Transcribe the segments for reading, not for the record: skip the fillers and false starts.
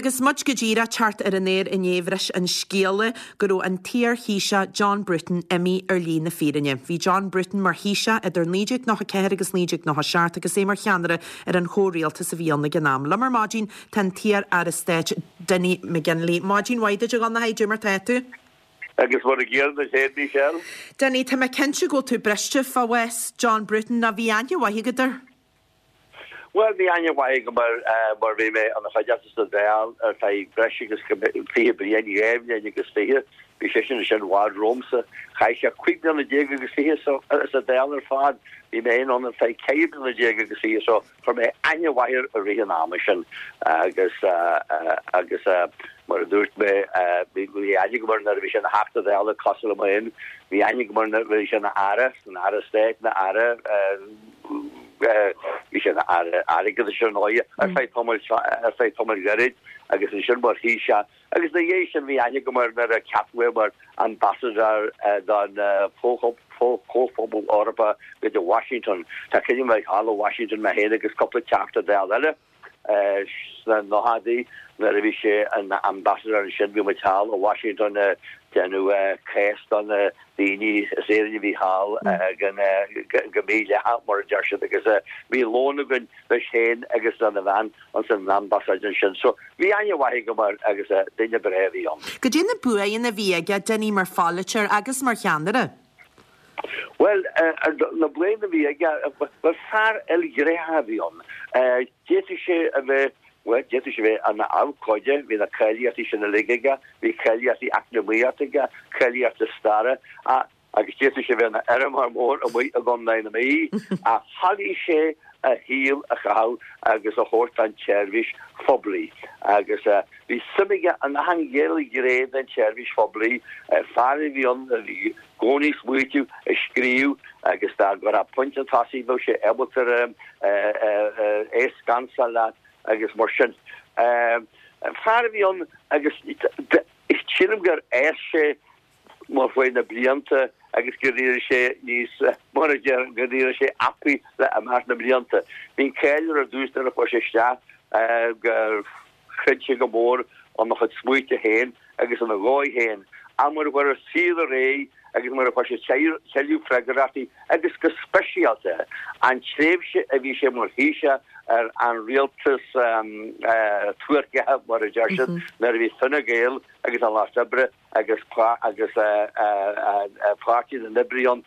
agus muid go díreach teacht ar an aer inné bhris an scéala go raibh an t-iar-Thaoiseach John Bruton imithe ar shlí na fírinne. Bhí John Bruton mar Thaoiseach idir 1994 agus 1997 agus é mar cheannaire ar an chomhrialtas a bhí ann ag an am. Liom ar maidin tá an t-iar-aire stáit Dinny McGinley. Maidin mhaith duit a Dhonncha, cad é mar tá tú? Agus mar a gcéanna duit féin, Michelle. Dinny, tá mé cinnte go bhfuil tú briste fá bhás John Bruton, nó bhí aithne mhaith agat air? Bhuel, bhí aithne mhaith agam air mar bhí mé ina chuideachta sa Dáil ar feadh breis agus 20 bliain, 22 bhliain. Bhí seisean ansin i bhfad romhamsa. Chaith sé 15 bliana agus fiche sa Dáil ar fad. Bhí mé féin ann ar feadh 14 bliana agus fiche so Chuir mé aithne mhaith air i rith an ama sin agus agus mar a dúirt mé bhí aithne agam air nuair a bhí sé ina Theachta Dála cosúil liom féin, bhí aithne agam air nuair a bhí sé ina Aire, ina Aire Stáit, ina Aire, bhí sé ina Aire Airgeadais ar ndóigh ar feadh tamaill ar feadh tamaill ghairid agus ansin mar Thaoiseach. Agus ina dhiaidh sin bhí aithne agam air nuair a ceapadh é mar Ambassador don Chomhphobal Eorpach go dtí Washington. Tá cuimhne agam bheith thall i Washington mé féin agus cúpla Teachta Dála eile sna nóchaidí nuair a bhí sé ina Ambassador ansin. Bhí muid thall i Washington ag déanamh cás do na daoine as Éirinn a bhí thall go mídhleathach mar a deir siad agus bhí lón againn leis féin agus lena bhean. ins an ambasáid ansin. So, bhí aithne mhaith agam air agus duine breá a bhí ann. Goidé na buanna a bhí aige, Dinny, mar pholaiteoir agus mar cheannaire? Bhuel, na buanna a bhí aige, bhuel, fear ilghnéitheach a bhí ann. D'fhéadfadh sé a bheith, bhuel, d'fhéadfadh sé a bheith ina abhcóide, bhí na cáilíochtaí sin uilig aige, bhí cáilíochtaí eacnamaíochta aige, cáilíochtaí staire, ach, agus d'fhéadfadh sé bheith ina fheirmeoir mór amuigh i gContae na Mí, ach thoiligh sé a shaol a chaitheamh agus a thabhairt don tseirbhís phoiblí. Agus bhí suim aige in achan ghné den tseirbhís phoiblí, fear a bhí ann a bhí i gcónaí ag smaoitiú, ag scríobh agus dá gcuirfeá pointe chun tosaigh bheadh sé ábalta é a scansáil leat agus mar sin. Fear a bhí ann agus sílim gur fhás sé mar chuaigh na blianta agus gur éirigh sé níos, mar a deir, gur éirigh sé apaí le imeacht na mblianta. Bhí an cáil air ar dtús nuair a chuaigh sé isteach gur chreid sé go mór ina chuid smaointe féin agus ina dhóigh féin. Ach mar a chuaigh an saol ar aghaidh agus mar a fuair sé tuilleadh freagrachtaí agus go speisialta an tréimhse a bhí sé mar Thaoiseach ar an rialtas tuairceach, mar a deir siad, nuair a bhí Fine Gael agus an Lucht Oibre agus agus Páirtí na nOibrithe ann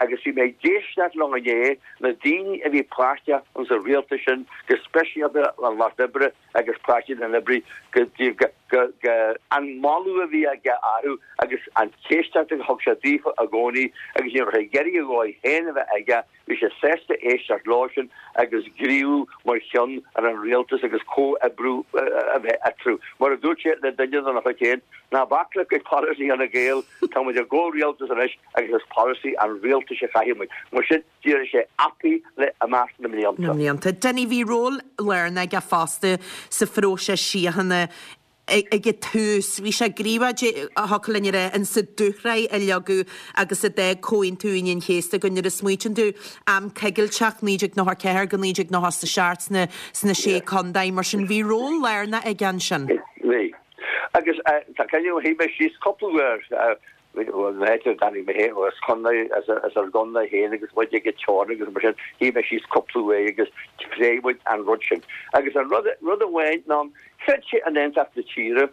agus bhí mé ag éisteacht leo inné, na daoine a bhí páirteach ins an rialtas sin, go speisialta an Lucht Oibre agus Páirtí na nOibrithe, go go go go an moladh a bhí aige orthu agus an éisteacht a thug sé daofa i gcónaí agus ní raibh sé ag iarraidh a dhóigh féin a bheith aige Bhí sé sásta éisteacht leo sin agus gníomhú mar cheann ar an rialtas agus comhoibriú a bheith eatarthu. Mar a dúirt sé le duine dena chuid féin, ná bac le polasaí Fhine Gael, tá muid i gcomhrialtas anois agus is polasaí an rialtais a chaithfidh muid. Mar sin, d'éirigh sé apaí le imeacht na mblianta. Na mblianta. Dinny, bhí ról lárnach aige fosta sa phróiseas síochána ag an tús. Bhí sé gníomhach, thiocfadh linn a rá, in sa dúshraith a leagadh agus a d'fhág Comhaontú Aoine an Chéasta go nuair a smaoitíonn tú am coigilteach 1994-1997 sna sna Sé Contae mar sin bhí ról lárnach aige ansin. Bhí. Agus tá cuimhne agam shuigh mé síos cúpla uair Bhuel, na háite a dtáinig mé féin, as contae, as ár gcontae féin agus muid ag an teorainn agus mar sin, shuigh mé síos cúpla uair agus phléigh muid an rud sin. Agus an rud, rud amháin ná, chreid sé in aontacht na tíre,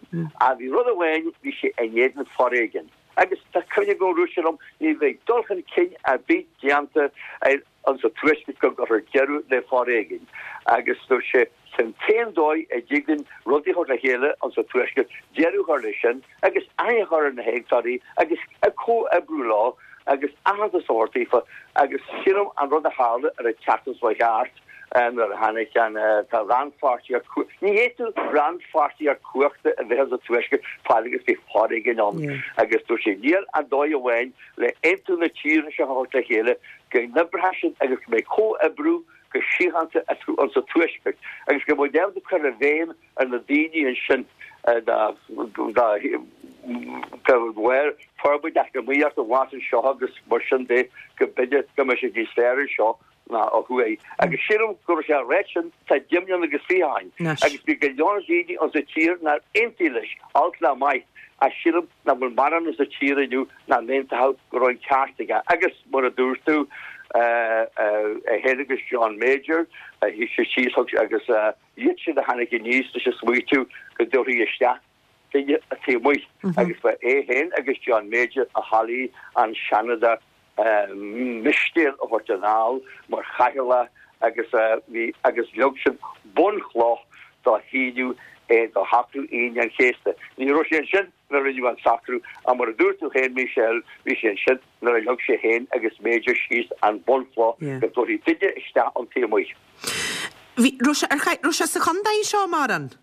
ach bhí rud amháin, bhí sé in éadan foréigin. Agus tá cuimhne agam, dúirt sé liom, ní bheidh dul chun cinn ar bith déanta ar, Insa Tuaisceart go gcuirfear deireadh le foréigean agus dúirt sé, Sin an t-aon dóigh a dtig linn rudaí a chur le chéile insa Tuaisceart, deireadh a chur leis sin agus aithne a chur ar na héagtóirí agus comhoibriú leo agus aitheantas a thabhairt daofa agus sílim an rud a tharla ar an tseachtain seo thart nuair a tháinig an tá rannpháirtíocht ní fhéadfadh rannpháirtíocht cumhachta a bheith insa Tuaisceart fad agus bhí foréigean ann agus dúirt sé níl ach dóigh amháin le aontú na tíre seo a thabhairt le chéile, go n-oibreoidh siad agus go mbeidh comhoibriú go síochánta eatarthu insa Tuaisceart agus go mbeidh ábalta cur i bhfeidhm ar na daoine ansin dá bharr forbairt eacnamaíochta amach anseo agus mar sin de go mb'fhéidir go mbeidh sé níos fearr anseo. ná ó thuaidh. Agus sílim go raibh sé á ráit sin tá 20 mbliana agus 20 ó shin. Agus bhí go leor daoine insa tír nár aontaigh leis, olc ná maith, ach sílim nach bhfuil mórán insa tír inniu nach n-aontódh go raibh an ceart aige. Agus mar a dúirt tú, é féin agus John Major, shuigh siad síos agus iad sin a tháinig aníos leis an smaoitiú go dtabharfaí isteach duine ón taobh amuigh agus ba é féin agus John Major a thoiligh an Seanadóir Mistéil a thabhairt anall mar chathaoirleach agus bhí agus leag siad bunchloch do shíniú é do shocrú Aoine an Chéasta. Ní raibh sé ansin nuair a rinneadh an socrú ach mar a dúirt tú féin Michelle, bhí sé ansin nuair a leag sé féin agus Major síos an bunchloch go dtabharfaí duine isteach ón taobh amuigh. Bhí, raibh sé, ar, raibh sé sa chontae seo mórán?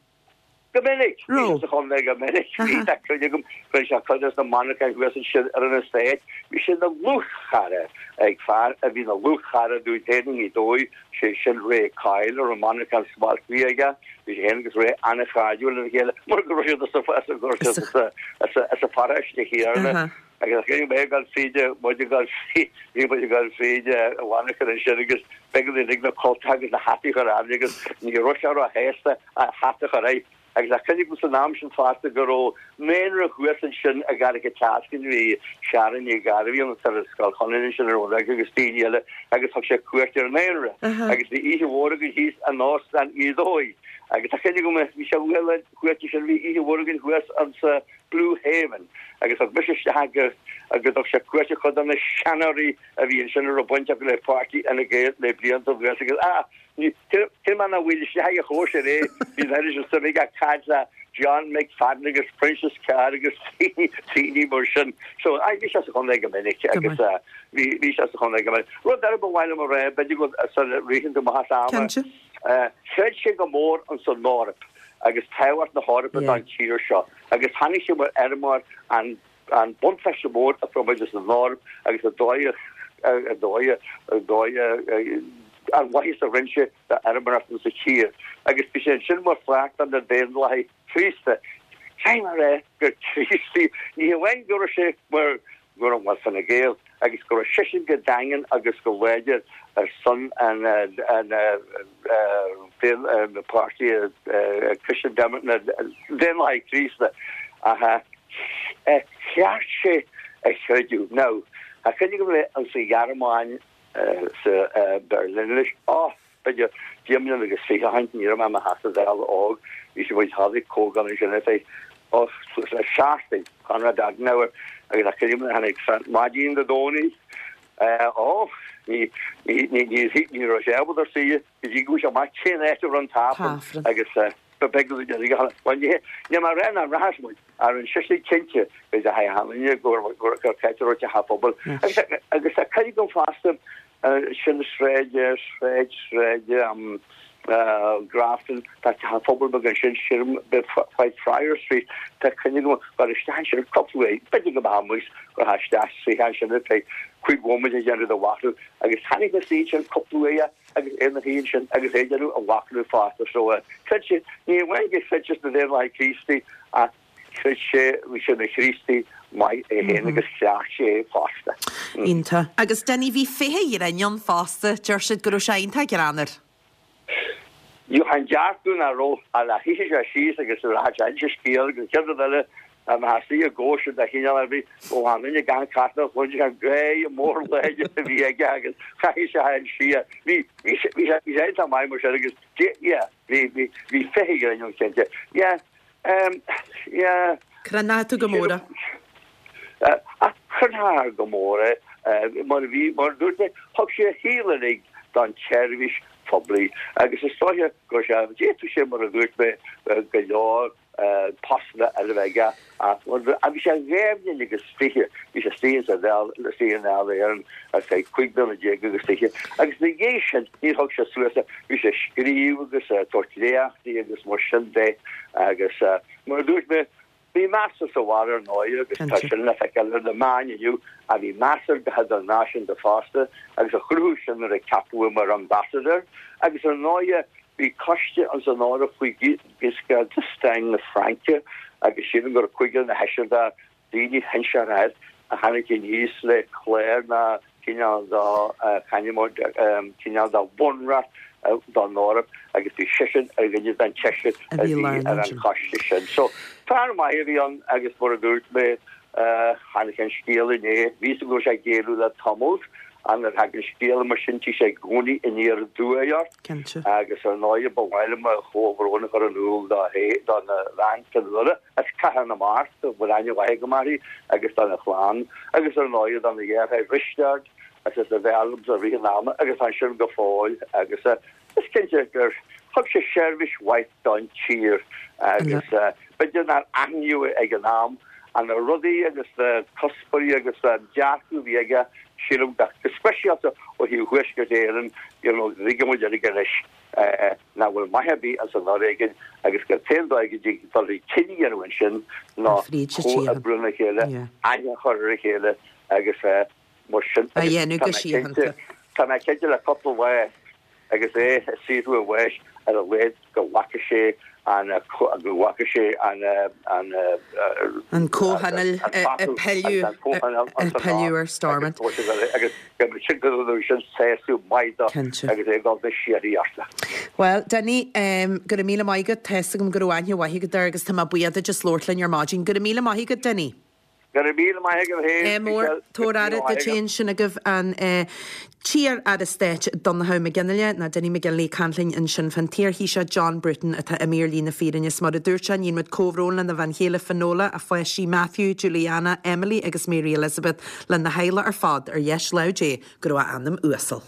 Go minic. Bhí sé sa chontae go minic. Bhí tá cuimhne agam go raibh sé cuid de na monarcháin thuas ansin ar an estate. Bhí sé ina dhlúthchara ag fear a bhí ina dhlúthchara dúinn féin i nGaoth Dobhair, sé sin Ray Coyle, a raibh monarchán smalt aige. Bhí sé féin agus Ray an-chairdiúil lena chéile mar go raibh siad as an pharóiste chéanna. Agus bhí mé ag dul fríd, muid ag dul fríd, bhí muid ag dul fríd an mhonarcha ansin agus b'éigean dúinn uilig na cultacha agus na hataí a chur orainn agus ní raibh sé róshásta a hata a chur air. Agus tá cuimhne agam san am sin fosta go raibh naíonra thuas ansin i gCarraig an tSeascainn, bhí Sharon Ní Ghairbhí ann ar Scoil Chonaire ansin ar an agus daoine eile agus thug sé cuairt ar an naíonra agus bhí oíche mhór againn thíos in Óstán Ghaoth Dobhair. Agus tá cuimhne agam bhí sé uaidh an chuairt sin, bhí oíche mhór againn thuas ansa Blue Haven agus thug mise isteach go go dtug sé cuairt ar chuid de na seanóirí a bhí ansin a raibh baint acu le páirtí Fhine Gael le blianta anuas agus ah ní cé mar nach bhfuil isteach ag chóisir é bhí an oiread sin suim aige ag caint le John McFadden agus Proinsias Carr agus daoine mar sin. So ah bhí sé sa chontae go minic agus bhí bhí sé sa chontae go minic. Rud eile ba mhaith liom a rá b'fhéidir go sula ritheann tú amach as am. Cinnte. Chreid sé go mór ins an Eoraip agus tábhacht na hEorpa don tír seo agus tháinig sé mar fheirmeoir an an buntáiste mór a fuair muid as an Eoraip agus an dóigh an dóigh an dóigh an mhaitheas a rinne sé d'fheirmeoireacht insa tír agus bhí sé ansin mar pháirt de na Daonlathaithe Críosta. Caithfidh mé a rá gur Críostaí ní hamháin go raibh sé mar go raibh mar Fine Gael agus go raibh seisean go daingean agus go láidir ar son an páirtí Christian na Daonlathaithe Críosta ach cheart sé a chreidiúint. Now, tá cuimhne agam le an sa Ghearmáin sa Berlin anois. Oh! B'fhéidir 20 mbliana agus 20 ó shin, ní raibh mé i mo Theachta Dála óg, bhí sé muid tháinig comhdháil ansin ar feadh, oh, suas le seachtain, Konrad Adenauer agus tá cuimhne agam tháinig san maidin Dé Domhnaigh, eh, oh, ní, ní, ní, ní, ní raibh sé ábalta suí go dtí go bhfuair sé amach cén áit a raibh an tAifreann agus, eh, ba bheag a bhí bhuel, ní, ní mar aon an rachas muid, ar an sise cinnte, go dteachaigh an duine gur, gur, gur ceart a raibh teach an phobail. Agus, agus tá cuimhne agam fosta, Sin sráid, sráid, sráid Grafton, tá teach an phobail beag ansin, sílim, Whitefriar Street, tá cuimhne agam gur isteach ansin cúpla uair, b'fhéidir go mbeadh amuigh gur isteach suí ansin ar feadh cúig bhomaite ag déanamh do mhachnamh agus tháinig na suí ansin cúpla uair agus é ina shuí ansin agus é ag déanamh a mhachnamh fosta so chreid sé, ní amháin gur chreid sé sna Daonlathaithe Críostaí ach Chreid sé, bhí sé ina Chríostaí maith é féin agus chleacht sé é fosta. Iontach. Agus Dinny, bhí féithe ghrinn ann fosta, deir siad go raibh sé iontach greannmhar. Bheadh an dearcadh nach raibh a le shuífeadh sé síos agus rachadh sé inse scéal agus an chéad rud eile dá mbeifeá istigh i gcóisir de chineál ar bith, ó an duine gan cartlann a chluin sé an gáire mór láidir a bhí aige agus chaithfeadh sé an siar. Bhí, bhí sé, bhí sé, bhí sé iontach maith mar sin agus, yeah, bhí, bhí, bhí féithe ghrinn ann cinnte. Yeah. Yeah. Crothnaigh tú go mór é. Ach chrothnaigh go mór é mar a bhí, mar a dúirt mé, thug sé a shaol uilig don tseirbhís phoiblí agus is dóiche go raibh sé, d'fhéadfadh sé, mar a dúirt mé, go leor postanna eile a bheith aige ach bhí sé dhá bhliain agus 20, bhí sé istigh sa Dáil, istigh i nDáil Éireann ar feadh 15 bliana agus 20 agus ina dhiaidh sin níor thug sé suas é, bhí sé ag scríobh agus ag tabhairt léachtaí agus mar sin de agus mar a dúirt mé, bhí meas air sa bhaile ar ndóigh agus tá sin le feiceáil ar na meáin inniu ach bhí meas air go hidirnáisiúnta fosta agus a chruthú sin nuair a ceapadh é mar ambassador agus ar ndóigh bhí coiste ins an Eoraip faoi Giscard d'Estaing na Fraince agus sílim go raibh cúigear nó seisear de daoine shinseartha a tháinig aníos le clár na. cineál de, c'ainm cineál de bhunreacht don Eoraip agus bhí seisean ar dhuine den tseisear a bhí ar an choiste sin. So, fear maith a bhí ann agus mar a dúirt mé, tháinig an scéal inné, bhí fhios agam go raibh sé ag géilleadh le tamall, ach nuair a thagann scéal mar sin tig sé i gcónaí aniar aduaidh ort. Cinnte. Agus ar ndóigh ba mhaith liom mo chomhbhrón a chur in iúl dó dona bhean Fionnuala as Cathair na Mart, a bhfuil aithne mhaith agam uirthi, agus dona chlann, agus ar ndóigh dona dheartháir Risteard, agus a b'fhearr liomsa i rith an ama agus tá ansin go fóill agus is cinnte gur thug sé seirbhís mhaith don tír agus b'fhéidir nár aithníodh é ag an am ach na rudaí agus na cuspóirí agus an dearcadh a bhí aige sílim go speisialta ó thaobh Thuaisceart Éireann you know tuigeann muid uilig anois nach bhfuil maith ar bith as an fhoréigean agus gur t-aon dóigh go dtig dul chun cinn a dhéanamh ansin ná comhoibriú lena chéile, aithne a chur ar a chéile agus mar sin a dhéanamh go síochánta. Tá mé cinnte le cúpla lá agus é ag saothrú a bháis ar a laghad go bhfaca sé an go bhfaca sé an an an comhthionól ag pilleadh ar Stormont. Agus go sin go raibh sin sásamh maith dó agus é ag dul na síoraíochta. Bhuel, Dinny, go raibh míle maith agat. Tá fhios agam go raibh aithne mhaith agat air agus tá mé buíoch duit as labhairt linn ar maidin. Go raibh míle maith agat, Dinny. Go raibh míle maith agat féin, Ádh mór, Michelle. Tabhair aire duit féin. Sin agaibh an t-iar-aire stáit Donnchadh Mac Fhionnghaile, nó Dinny McGinley, ag caint linn ansin fán t-iar-Thaoiseach John Bruton atá imithe ar shlí na fírinne. Is mar a dúirt sé, níonn muid comhbhrón lena bhean chéile Finola, a pháistí Matthew, Juliana, Emily agus Mary Elizabeth, lena theaghlach ar fad, ar dheis lámh Dé go raibh a anam uasal.